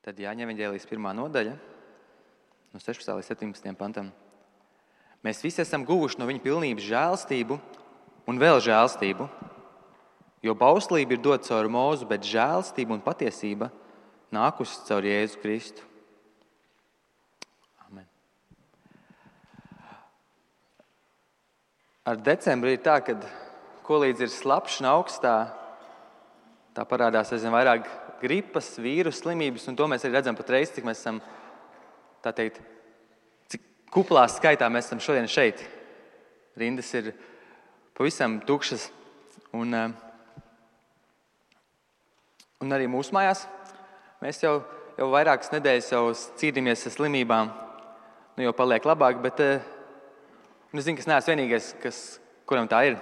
Tad Jāņa evaņģēlijas 1. nodaļa, no 16. līdz 17. pantam. Mēs visi esam guvuši no viņa pilnības žēlstību un vēl žēlstību, jo bauslība ir dota caur Mūzu, bet žēlstība un patiesība nākusi caur Jēzu Kristu. Amen. Ar decembri ir tā, kad kolīdz ir slapšs un augstā, tā parādās aizvien vairāk gripas, vīrusu slimības, un to mēs arī redzam patreiz, cik mēs esam, tā teikt, cik kuplā skaitā mēs esam šodien šeit. Rindas ir pavisam tukšas, un arī mūsu mājās. Mēs jau vairākas nedēļas jau cīnāmies ar slimībām, jau paliek labāk, bet es zinu, ka es neesmu vienīgais, kuram tā ir.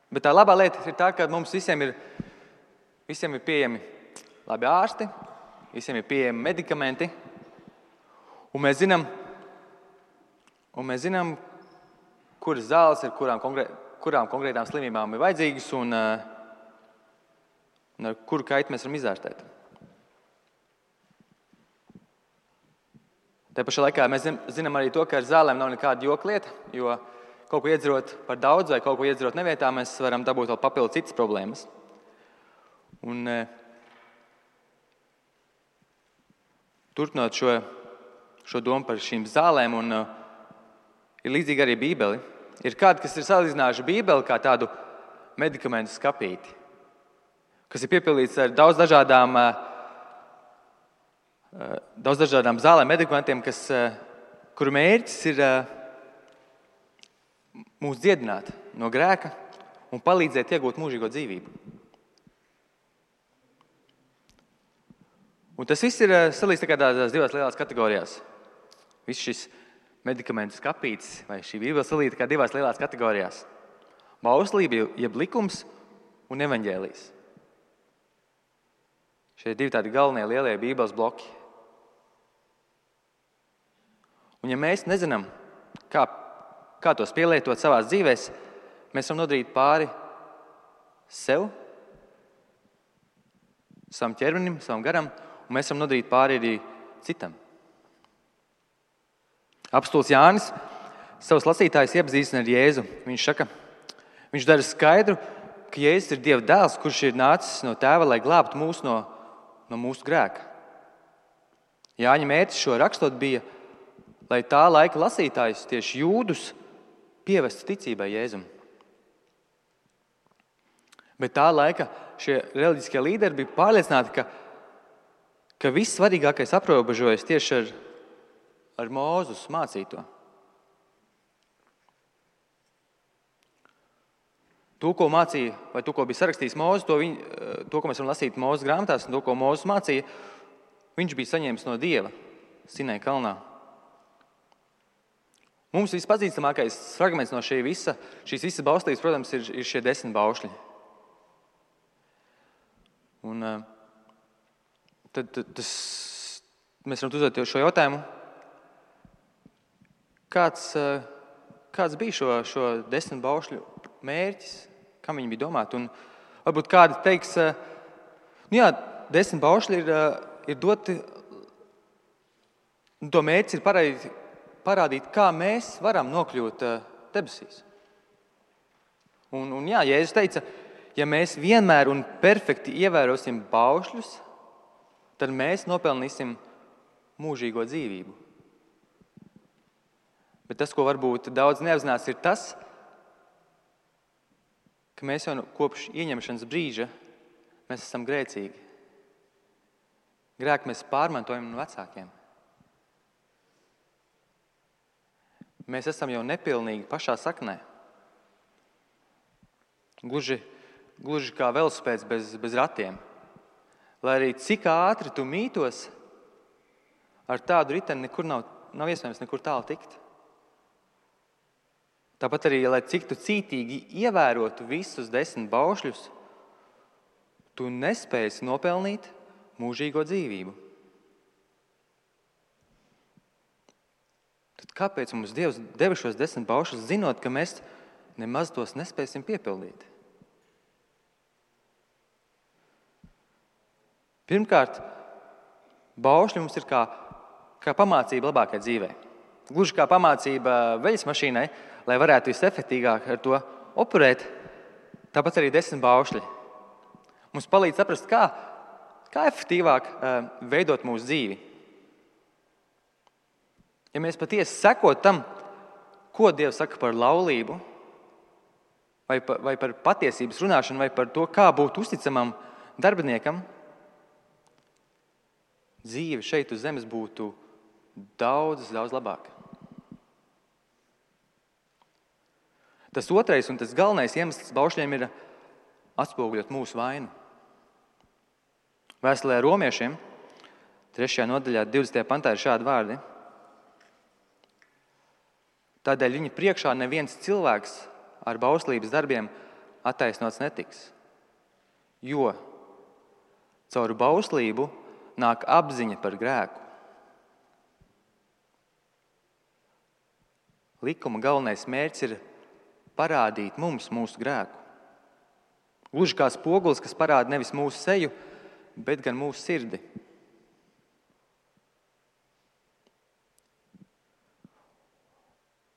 Bet tā labā lieta ir tā, ka mums visiem ir pieejami labi ārsti, visiem ir pieejami medikamenti, un mēs zinām, kuras zāles ir kurām konkrētām slimībām ir vajadzīgas un ar kuru kaitu mēs varam izārstēt. Te pašā laikā mēs zinām arī to, ka ar zālēm nav nekāda joklieta, jo kaut ko iedzerot par daudz vai kaut ko iedzerot nevietā, mēs varam dabūt vēl papildu citas problēmas. Un turpinot šo domu par šīm zālēm, un ir līdzīgi arī Bībeli. Ir kādi, kas ir salīdzinājuši Bībeli kā tādu medikamentu skapīti, kas ir piepildīts ar daudz dažādām zālēm, medikamentiem, kuru mērķis ir mūs dziedināt no grēka un palīdzēt iegūt mūžīgo dzīvību. Un tas viss ir salīdz tādās divās lielās kategorijās. Viss šis medikamentu skapītis vai šī Bībele salīdz kā divās lielās kategorijās. Bauslība, jeb likums un evaņģēlijs. Šie divi tādi galvenie lielie Bībeles bloki. Un ja mēs nezinām, kā tos pielietot savās dzīvēs, mēs varam nodarīt pāri sev, savam ķermenim, savam garam, un mēs varam nodarīt pāri arī citam. Apostols Jānis savus lasītājus iepazīstina ar Jēzu. Viņš dara skaidru, ka Jēzus ir Dieva dēls, kurš ir nācis no Tēva, lai glābtu mūs no mūsu grēka. Jāņa mērķis šo rakstot bija, lai tā laika lasītājus, tieši jūdus, pievestu ticībai Jēzum. Bet tā laika šie reliģiskie līderi bija pārliecināti, ka viss svarīgākais aprobežojas tieši ar Mūzus mācīto. To, ko mācīja, vai to, ko bija sarakstījis Mūzes, to, ko mēs varam lasīt Mūzes grāmatās, un to, ko Mūzes mācīja, viņš bija saņēmis no Dieva Sinai kalnā. Mums vispazīstamākais fragments no šīs visas bauslības, protams, ir šie 10 baušļi. Un tad mēs varam uzdot šo jautājumu, kāds bija šo 10 baušļu mērķis, kam viņi bija domāti. Un varbūt kādi teiks, 10 baušļi ir doti, un to mērķis ir parādīt, kā mēs varam nokļūt debesīs. Un Jēzus teica, ja mēs vienmēr un perfekti ievērosim baušļus, tad mēs nopelnīsim mūžīgo dzīvību. Bet tas, ko varbūt daudz neapzinās, ir tas, ka mēs jau kopš ieņemšanas brīža mēs esam grēcīgi. Grēku mēs pārmantojam no vecākiem. Mēs esam jau nepilnīgi pašā saknē. Gluži kā velospēds bez ratiem. Lai arī cik ātri tu mītos, ar tādu riteni nekur nav iespējams nekur tālu tikt. Tāpat arī, lai cik tu cītīgi ievērotu visus 10 baušļus, tu nespēsi nopelnīt mūžīgo dzīvību. Tad kāpēc mums Dievs deva šos 10 baušļus, zinot, ka mēs nemaz tos nespēsim piepildīt? Pirmkārt, Baušļi mums ir kā pamācība labākai dzīvei. Gluži kā pamācība veļas mašīnai, lai varētu visefektīgāk ar to operēt, tāpat arī 10 baušļi. Mums palīdz saprast, kā efektīvāk veidot mūsu dzīvi. Ja mēs patiesi sekot tam, ko Dievs saka par laulību, vai par patiesības runāšanu, vai par to, kā būt uzticamam darbiniekam, dzīve šeit uz zemes būtu daudz labāka. Tas otrais un tas galvenais iemesls baušļiem ir atspoguļot mūsu vainu. Vēstulē romiešiem, 3. nodaļā, 20. pantā ir šādi vārdi. Tādēļ viņa priekšā neviens cilvēks ar bauslības darbiem attaisnots netiks, jo caur bauslību nāk apziņa par grēku. Likuma galvenais mērķis ir parādīt mums mūsu grēku. Gluži kā spogulis, kas parāda nevis mūsu seju, bet gan mūsu sirdi.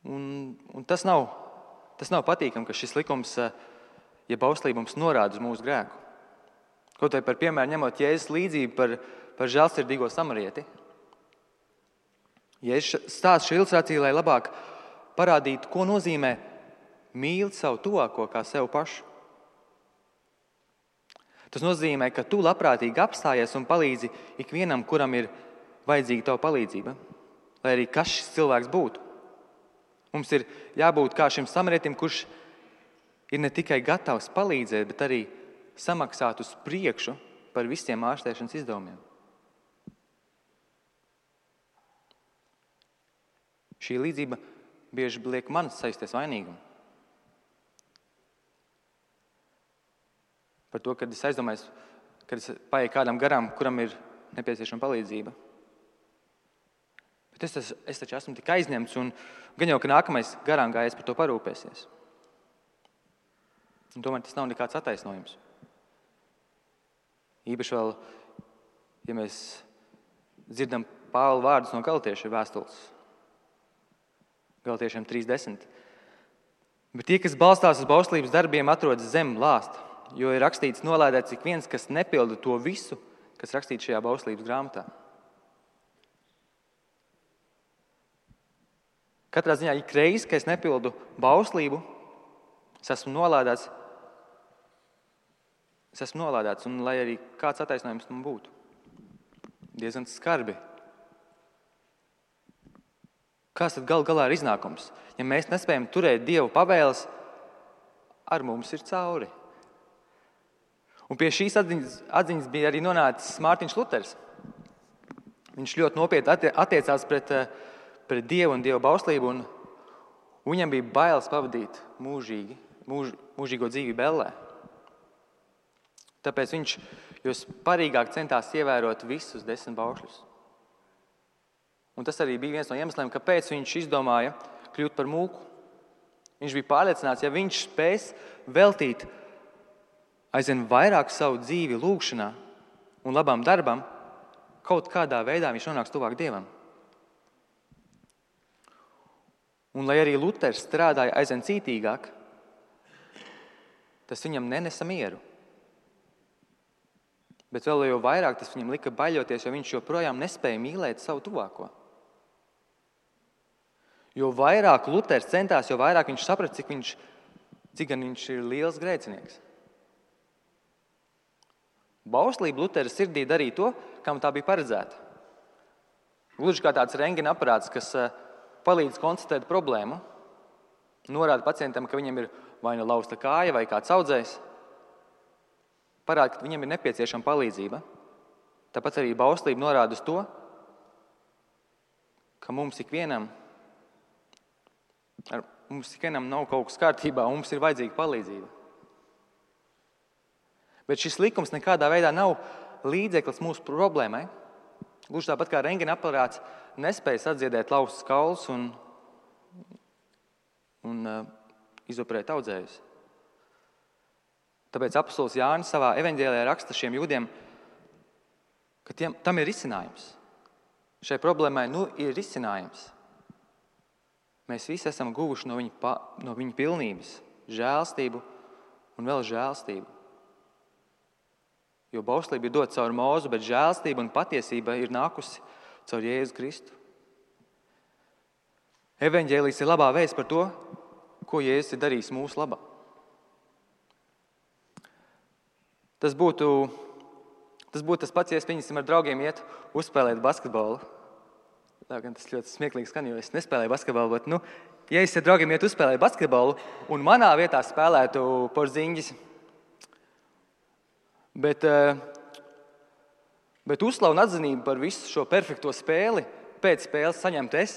Un tas nav patīkami, ka šis likums, ja bauslība mums norāda uz mūsu grēku. Kaut vai par piemēru ņemot Jēzus līdzību par žēlsirdīgo samarieti. Jēzus stāsta šo ilustrāciju, lai labāk parādītu, ko nozīmē mīlt savu tuvāko kā sev pašu. Tas nozīmē, ka tu labprātīgi apstājies un palīdzi ikvienam, kuram ir vajadzīga tava palīdzība, lai arī kas šis cilvēks būtu. Mums ir jābūt kā šim samarietim, kurš ir ne tikai gatavs palīdzēt, bet arī samaksāt uz priekšu par visiem ārstēšanas izdevumiem. Šī līdzība bieži liek manis sajusties vainīgumu. Par to, kad es aizdomājos, kad es paieku kādam garām, kuram ir nepieciešama palīdzība. Bet es taču esmu tik aizņemts, un gan jau, ka nākamais garām gājējs par to parūpēsies. Un tomēr tas nav nekāds attaisnojums. Īpaši vēl, ja mēs dzirdam Pāvila vārdus no Galatiešu vēstules. Galatiešiem 3:10. Bet tie, kas balstās uz bauslības darbiem, atrodas zem lāsta, jo ir rakstīts nolādēts ik viens, kas nepilda to visu, kas rakstīts šajā bauslības grāmatā. Katrā ziņā ik reiz, kad es nepildu bauslību, es esmu nolādēts, un lai arī kāds attaisnojums man būtu. Diezgan skarbi. Kāds tad gal galā ir iznākums? Ja mēs nespējam turēt Dievu pavēles, ar mums ir cauri. Un pie šīs atziņas bija arī nonācis Mārtiņš Luters. Viņš ļoti nopietni attiecās pret Dievu un Dieva bauslību, un viņam bija bailes pavadīt mūžīgo dzīvību ellē. Tāpēc viņš jo sparīgāk centās ievērot visus 10 baušļus. Un tas arī bija viens no iemesliem, kāpēc viņš izdomāja kļūt par mūku. Viņš bija pārliecināts, ja viņš spēs veltīt aizvien vairāk savu dzīvi lūgšanā un labam darbam, kaut kādā veidā viņš nonāks tuvāk Dievam. Un lai arī Luters strādāja aizvien cītīgāk, tas viņam nenesa mieru. Bet vēl jau vairāk tas viņam lika baļoties, jo viņš joprojām nespēja mīlēt savu tuvāko. Jo vairāk Luters centās, jo vairāk viņš saprata, cik gan viņš ir liels grēcinieks. Bauslība Lutera sirdī darīja to, kam tā bija paredzēta. Gluži kā tāds rentgena aparāts, kas palīdz konstatēt problēmu, norāda pacientam, ka viņam ir vai nu lausta kāja vai kāds audzējs, parāda, ka viņam ir nepieciešama palīdzība. Tāpat arī bauslība norāda uz to, ka mums ikvienam nav kaut kas kārtībā, un mums ir vajadzīga palīdzība. Bet šis likums nekādā veidā nav līdzeklis mūsu problēmai. Gluži tāpat kā rentgena aparāts nespēja sadziedēt laustus kaulus un izoperēt audzējus. Tāpēc apostols Jānis savā evaņģēlijā raksta šiem jūdiem, ka ka tam ir risinājums. Šai problēmai ir risinājums. Mēs visi esam guvuši no viņa pilnības žēlstību un vēl žēlstību. Jo bauslība ir dota caur Mūzu, bet žēlstība un patiesība ir nākusi caur Jēzu Kristu. Evaņģēlijs ir labā vēsts par to, ko Jēzus ir darījis mūsu labā. Tas būtu tas pats, ja es pieņemsim ar draugiem iet uzspēlēt basketbolu. Tā gan tas ļoti smieklīgi skan, jo es nespēlēju basketbolu, bet, ja es ar draugiem iet uzspēlēt basketbolu un manā vietā spēlētu Porziņģis, bet uzslavu un atzinību par visu šo perfekto spēli pēc spēles saņemtu es.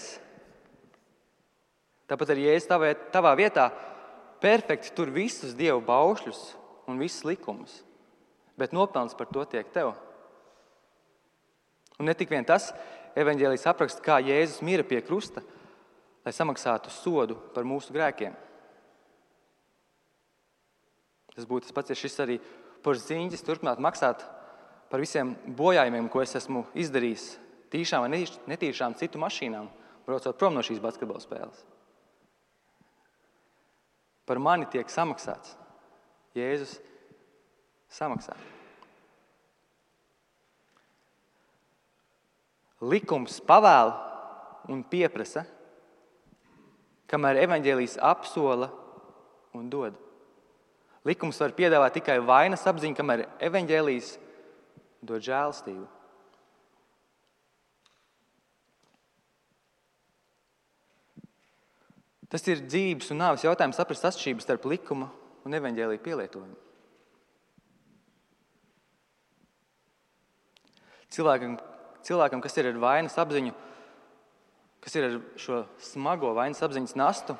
Tāpat arī, ja es tavā vietā perfekti tur visus Dievu baušļus un visus likumus, bet nopelns par to tiek tev. Un ne tik vien tas, evaņģēlijs apraksta, kā Jēzus mira pie krusta, lai samaksātu sodu par mūsu grēkiem. Tas būtu tas pats, ja šis arī Porziņģis turpināt maksāt par visiem bojājumiem, ko es esmu izdarījis tīšām vai netīšām citu mašīnām, braucot prom no šīs basketbola spēles. Par mani tiek samaksāts. Jēzus samaksā. Likums pavēl un pieprasa, kamēr evaņģēlijs apsola un dod. Likums var piedāvāt tikai vainas apziņu, kamēr evaņģēlijs dod žēlastību. Tas ir dzīves un nāves jautājums saprast atšķirības starp likuma un evaņģēlija pielietojumu. Cilvēkam, kas ir ar vainas apziņu, kas ir ar šo smago vainas apziņas nastu,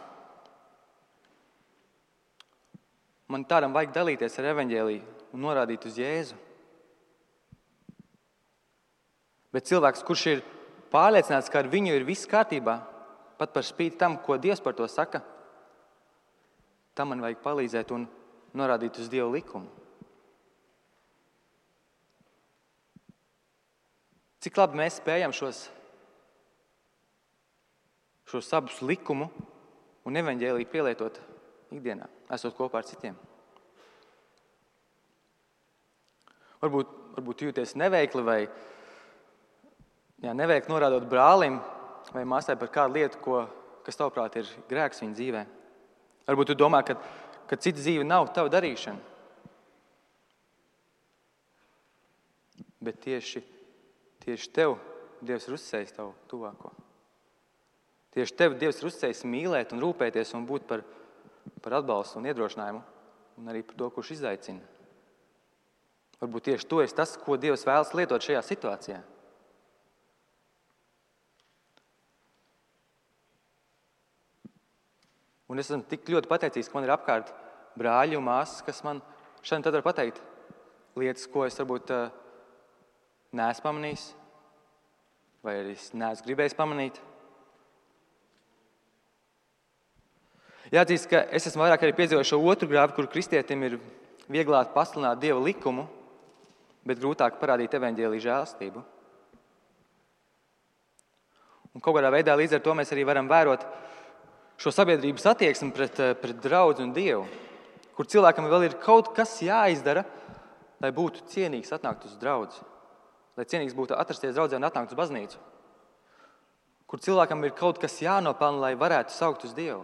man tādam vajag dalīties ar evaņģēliju un norādīt uz Jēzu. Bet cilvēks, kurš ir pārliecināts, ka ar viņu ir viss kārtībā, pat par spīti tam, ko Dievs par to saka, tam man vajag palīdzēt un norādīt uz Dievu likumu. Cik labi mēs spējam šos abus likumu un evaņģēliju pielietot ikdienā, esot kopā ar citiem. Varbūt jūties neveikli vai neveikli norādot brālim vai māsai par kādu lietu, kas tavuprāt ir grēks viņa dzīvē. Varbūt tu domā, ka cita dzīve nav tava darīšana. Bet tieši tev Dievs ir uzticējis tavu tuvāko. Tieši tev Dievs ir uzticējis mīlēt un rūpēties un būt par atbalstu un iedrošinājumu un arī par to, kurš izaicina. Varbūt tieši tu esi tas, ko Dievs vēlas lietot šajā situācijā. Un es esmu tik ļoti pateicīgs, ka man ir apkārt brāļi un māsas, kas man šodien tad var pateikt lietas, ko es varbūt neesmu pamanījis, vai arī es neesmu gribējis pamanīt. Jāatzīst, ka es esmu vairāk arī piedzīvojis šo otru grāvi, kur kristietim ir vieglāk pasludināt Dieva likumu, bet grūtāk parādīt evaņģēlija žēlastību. Un kaut kādā veidā līdz ar to mēs arī varam vērot šo sabiedrības attieksmi pret draudzi un Dievu, kur cilvēkam vēl ir kaut kas jāizdara, lai būtu cienīgs atnākt uz draudzi, lai cienīgs būtu atrasties draudzē un atnākt uz baznīcu, kur cilvēkam ir kaut kas jānopelna, lai varētu saukt uz Dievu.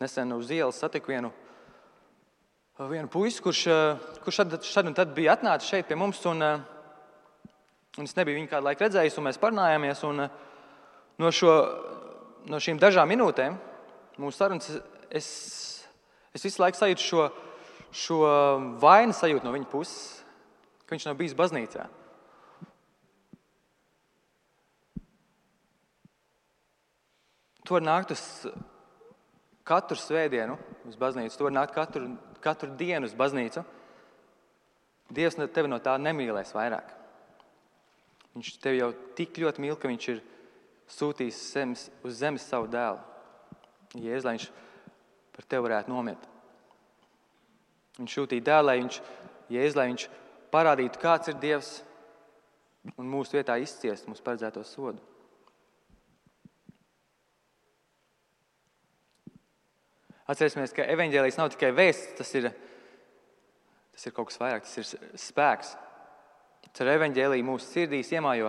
Nesen uz ielas satiku vienu puisi, kurš šad un tad bija atnācis šeit pie mums, un es nebiju viņu kādu laiku redzējis, un mēs parunājāmies, un no šīm dažām minūtēm mūsu sarunas es visu laiku sajūtu šo vainu sajūtu no viņa puses, ka viņš nav bijis baznīcā. Tu vari nākt uz katru svētdienu uz baznīcu, tu vari nākt katru dienu uz baznīcu. Dievs tevi no tā nemīlēs vairāk. Viņš tevi jau tik ļoti mīl, ka viņš ir sūtījis uz zemes savu dēlu. Jēzus, lai viņš par tevi varētu nomirt. Viņš sūtīja dēlu, lai viņš Jēzus, lai viņš parādītu, kāds ir Dievs un mūsu vietā izciest mūsu paredzēto sodu. Atcerēsimies, ka evaņģēlijs nav tikai vēsts, tas ir kaut kas vairāk, tas ir spēks. Ar evaņģēliju mūsu sirdīs iemājo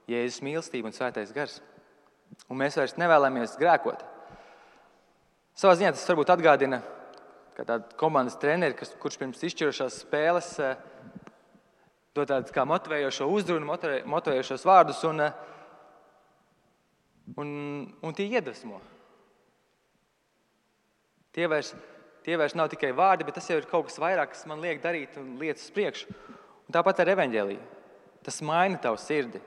Jēzus mīlestība un svētais gars. Un mēs vairs nevēlamies grēkot. Savā ziņā tas varbūt atgādina, ka tāda komandas treneri, kurš pirms izšķirošās spēles dod tādu kā motivējošo uzrunu, motivējošos vārdus un tie iedvesmo. Tie vairs nav tikai vārdi, bet tas jau ir kaut kas vairāk, kas man liek darīt un lietas uz priekšu. Un tāpat ar evaņģēliju. Tas maina tavu sirdi.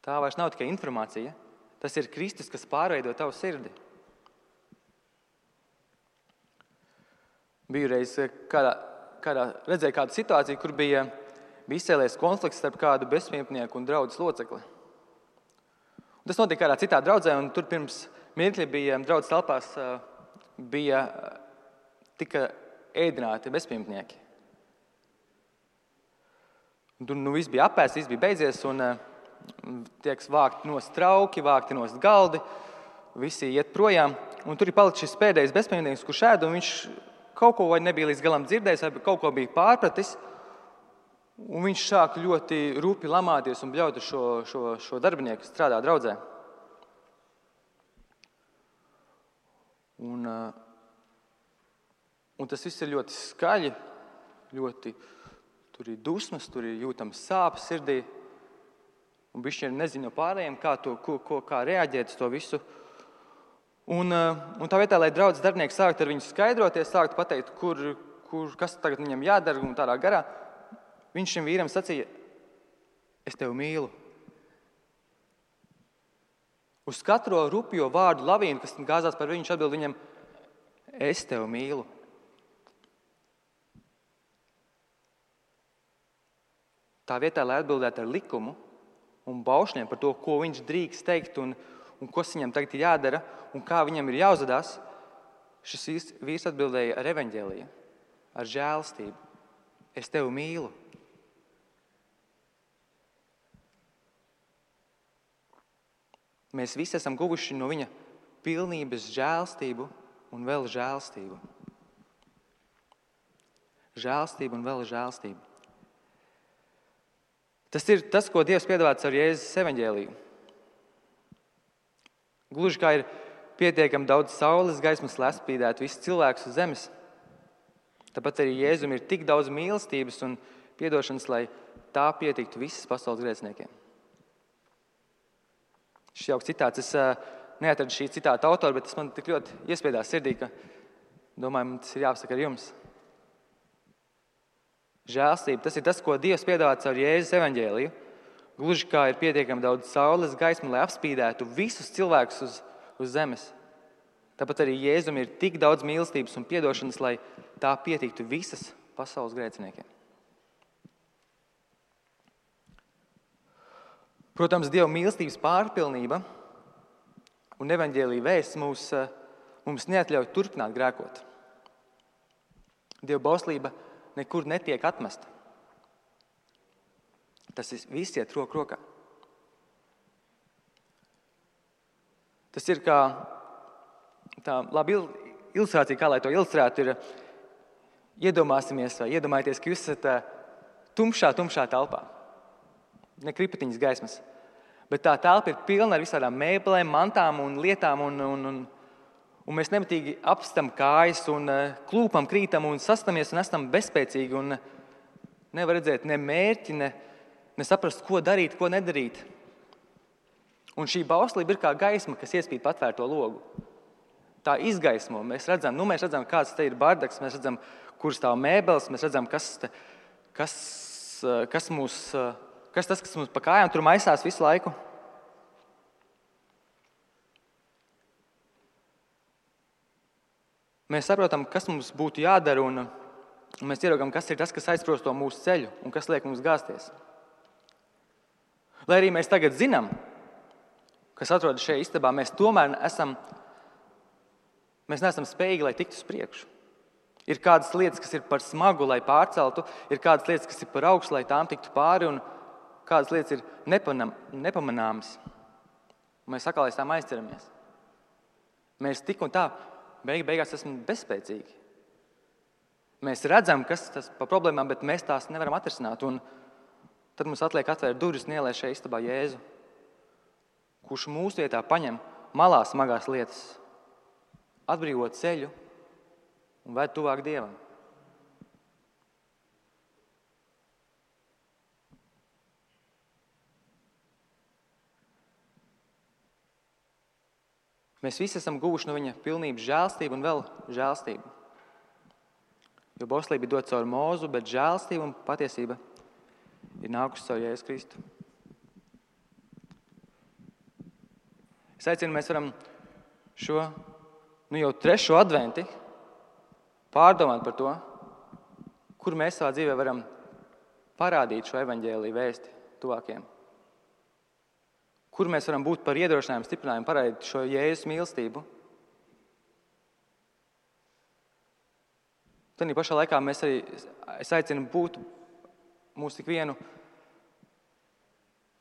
Tā vairs nav tikai informācija. Tas ir Kristus, kas pārveido tavu sirdi. Biju reiz redzēju kādu situāciju, kur bija izcēlies konflikts starp kādu bezpajumtnieku un draudzes locekli. Un tas notika kādā citā draudzē, un tur pirms mirkļa bija draudzes telpās tika ēdināti bezpajumtnieki. Un tur viss bija apēsts, viss bija beidzies, un tiek vākti nost trauki, vākti nost galdi, visi iet projām. Un tur ir palicis šis pēdējais bezpajumtnieks, kurš ēd, un viņš kaut ko vai nebija līdz galam dzirdējis, vai kaut ko bija pārpratis. Un viņš sāk ļoti rupi lamāties un bļaut šo darbinieku, kas strādā draudzē. Un tas viss ir ļoti skaļi, tur ir dusmas, tur ir jūtams sāpes sirdī. Un bišķi nezinu no pārējiem, kā reaģēt uz to visu. Un tā vietā, lai draudzes darbinieki sāktu ar viņu skaidroties, sāktu pateikt, kas tagad viņam jādara un tādā garā, viņš šim vīram sacīja, es tevi mīlu. Uz katro rupjo vārdu lavīnu, kas gāzās par viņu, viņš atbild viņam, es tevi mīlu. Tā vietā, lai atbildētu ar likumu un baušļiem par to, ko viņš drīkst teikt un kas viņam tagad ir jādara un kā viņam ir jāuzvedās, šis vīrs atbildēja ar evaņģēliju, ar žēlastību. Es tevi mīlu. Mēs visi esam guvuši no viņa pilnības žēlastību un vēl žēlastību. Žēlastību un vēl žēlastību. Tas ir tas, ko Dievs piedāvāts ar Jēzus evaņģēliju. Gluži kā ir pietiekami daudz saules gaismas, lai atspīdētu visus cilvēkus uz zemes. Tāpat arī Jēzum ir tik daudz mīlestības un piedošanas, lai tā pietiktu visas pasaules grēciniekiem. Šis jauks citāts, es neatradu šī citāta autoru, bet tas man tik ļoti iespiedās sirdī, ka domāju, man tas ir jāpasaka ar jums. Žēlastība, tas ir tas, ko Dievs piedāvāts ar Jēzus evaņģēliju. Gluži kā ir pietiekami daudz saules gaismu, lai apspīdētu visus cilvēkus uz zemes. Tāpat arī Jēzum ir tik daudz mīlestības un piedošanas, lai tā pietiktu visas pasaules grēciniekiem. Protams, Dieva mīlestības pārpilnība un evaņģēlija vēsts mums neatļauj turpināt grēkot. Dieva bauslība nekur netiek atmesta. Tas viss iet roku rokā. Tas ir kā tā laba ilustrācija, kā lai to ilustrētu, ir iedomājieties, ka jūs esat tumšā telpā. Ne kripatiņas gaismas. Bet tā telpa ir pilna ar visādām mēbelēm, mantām un lietām, un mēs nemitīgi apstam kājas un klūpam, krītam un sastamies un esam bezspēcīgi un nevar redzēt ne mērķi, ne saprast, ko darīt, ko nedarīt. Un šī bauslība ir kā gaisma, kas iespīd patvērto logu. Tā izgaismo. Mēs redzam, kāds te ir bardaks, mēs redzam, kur stāv mēbeles, mēs redzam, kas mums pa kājām tur maisās visu laiku. Mēs saprotam, kas mums būtu jādara, un mēs ieraugam, kas ir tas, kas aizprosto mūsu ceļu un kas liek mums gāzties. Lai arī mēs tagad zinām, kas atrodas šajā istabā, mēs tomēr neesam spējīgi, lai tiktu uz priekšu. Ir kādas lietas, kas ir par smagu, lai pārceltu, ir kādas lietas, kas ir par augstu, lai tām tiktu pāri, un kādas lietas ir nepamanāmas. Un mēs atkal aiz tām aizceramies. Mēs tik un tā beigās esam bezspēcīgi. Mēs redzam, kas tas par problēmām, bet mēs tās nevaram atrisināt. Un tad mums atliek atvērt durvis un ielēst šajā istabā Jēzu, kurš mūsu vietā paņem malā smagās lietas, atbrīvo ceļu un ved tuvāk Dievam. Mēs visi esam guvuši no viņa pilnības žēlstību un vēl žēlstību. Jo bauslība ir dot caur Mūzu, bet žēlstība un patiesība ir nākusi caur Jēzu Kristu. Es aicinu, mēs varam šo jau 3. adventi pārdomāt par to, kur mēs savā dzīvē varam parādīt šo evaņģēliju vēsti tuvākiem. Kur mēs varam būt par iedrošinājumu, stiprinājumu, parādīt šo Jēzus mīlestību. Tādā pašā laikā es aicinu būt mūsu ikvienu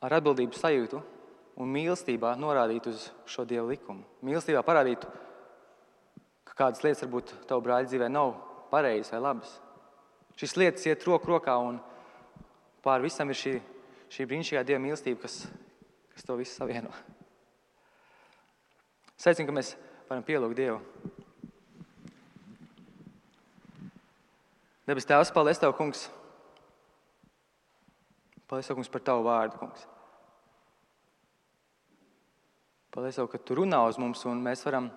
ar atbildības sajūtu un mīlestībā norādīt uz šo Dieva likumu. Mīlestībā parādīt, ka kādas lietas varbūt tavu brāļa dzīvē nav pareizas vai labas. Šīs lietas iet roku rokā un pār visam ir šī brīnišķīgā Dieva mīlestība, kas to visu savieno. Es aicinu, ka mēs varam pielūgt Dievu. Debes Tēvs, paldies Tev, Kungs. Paldies Tev, Kungs, par Tavu vārdu, Kungs. Paldies Tev, ka Tu runā uz mums un mēs varam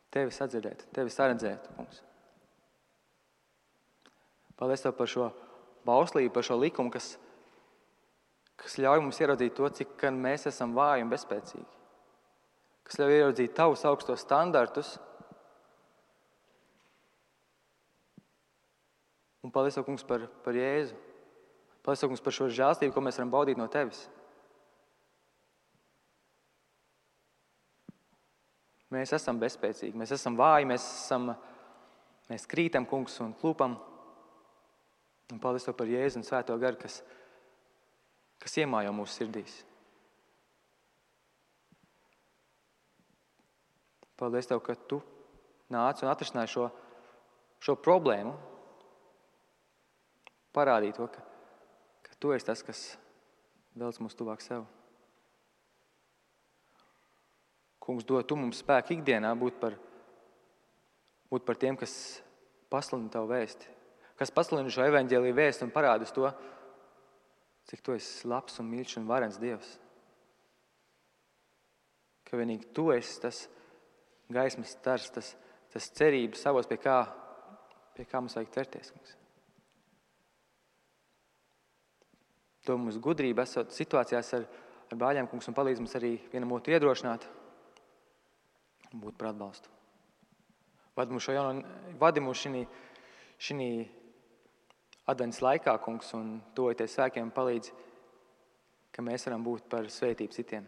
Tevi sadzirdēt, Tevi saredzēt, Kungs. Paldies Tev par šo bauslību, par šo likumu, kas ļauj mums ieraudzīt to, cik mēs esam vāji un bezspēcīgi. Kas ļauj ieraudzīt Tavus augstos standartus. Un paldies Tev, Kungs, par Jēzu. Paldies Tev, Kungs, par šo žēlstību, ko mēs varam baudīt no Tevis. Mēs esam bezspēcīgi, mēs esam vāji, mēs krītam, Kungs, un klūpam. Un paldies Tev par Jēzu un Svēto garu, kas iemājo mūsu sirdīs. Paldies Tev, ka Tu nāci un atrisināji šo problēmu. Parādīja to, ka Tu esi tas, kas velc mūs tuvāk sev. Kungs, dod Tu mums spēku ikdienā būt par tiem, kas pasludina Tavu vēsti, kas pasludina šo evaņģēliju vēsti un parāda uz to, cik Tu esi labs un mīļš un varens Dievs. Ka vienīgi Tu esi tas gaismas stars, tas cerības savos, pie kā mums vajag ķerties, Kungs. To mums gudrība esot situācijās ar brāļiem, Kungs, un palīdz mums arī vienam otru iedrošināt un būt par atbalstu. Vadi mūs šī advents laikā, Kungs, un tuvojoties svētkiem palīdz, ka mēs varam būt par svētību citiem.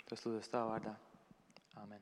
Tas lūdzu Tavā vārdā. Āmen.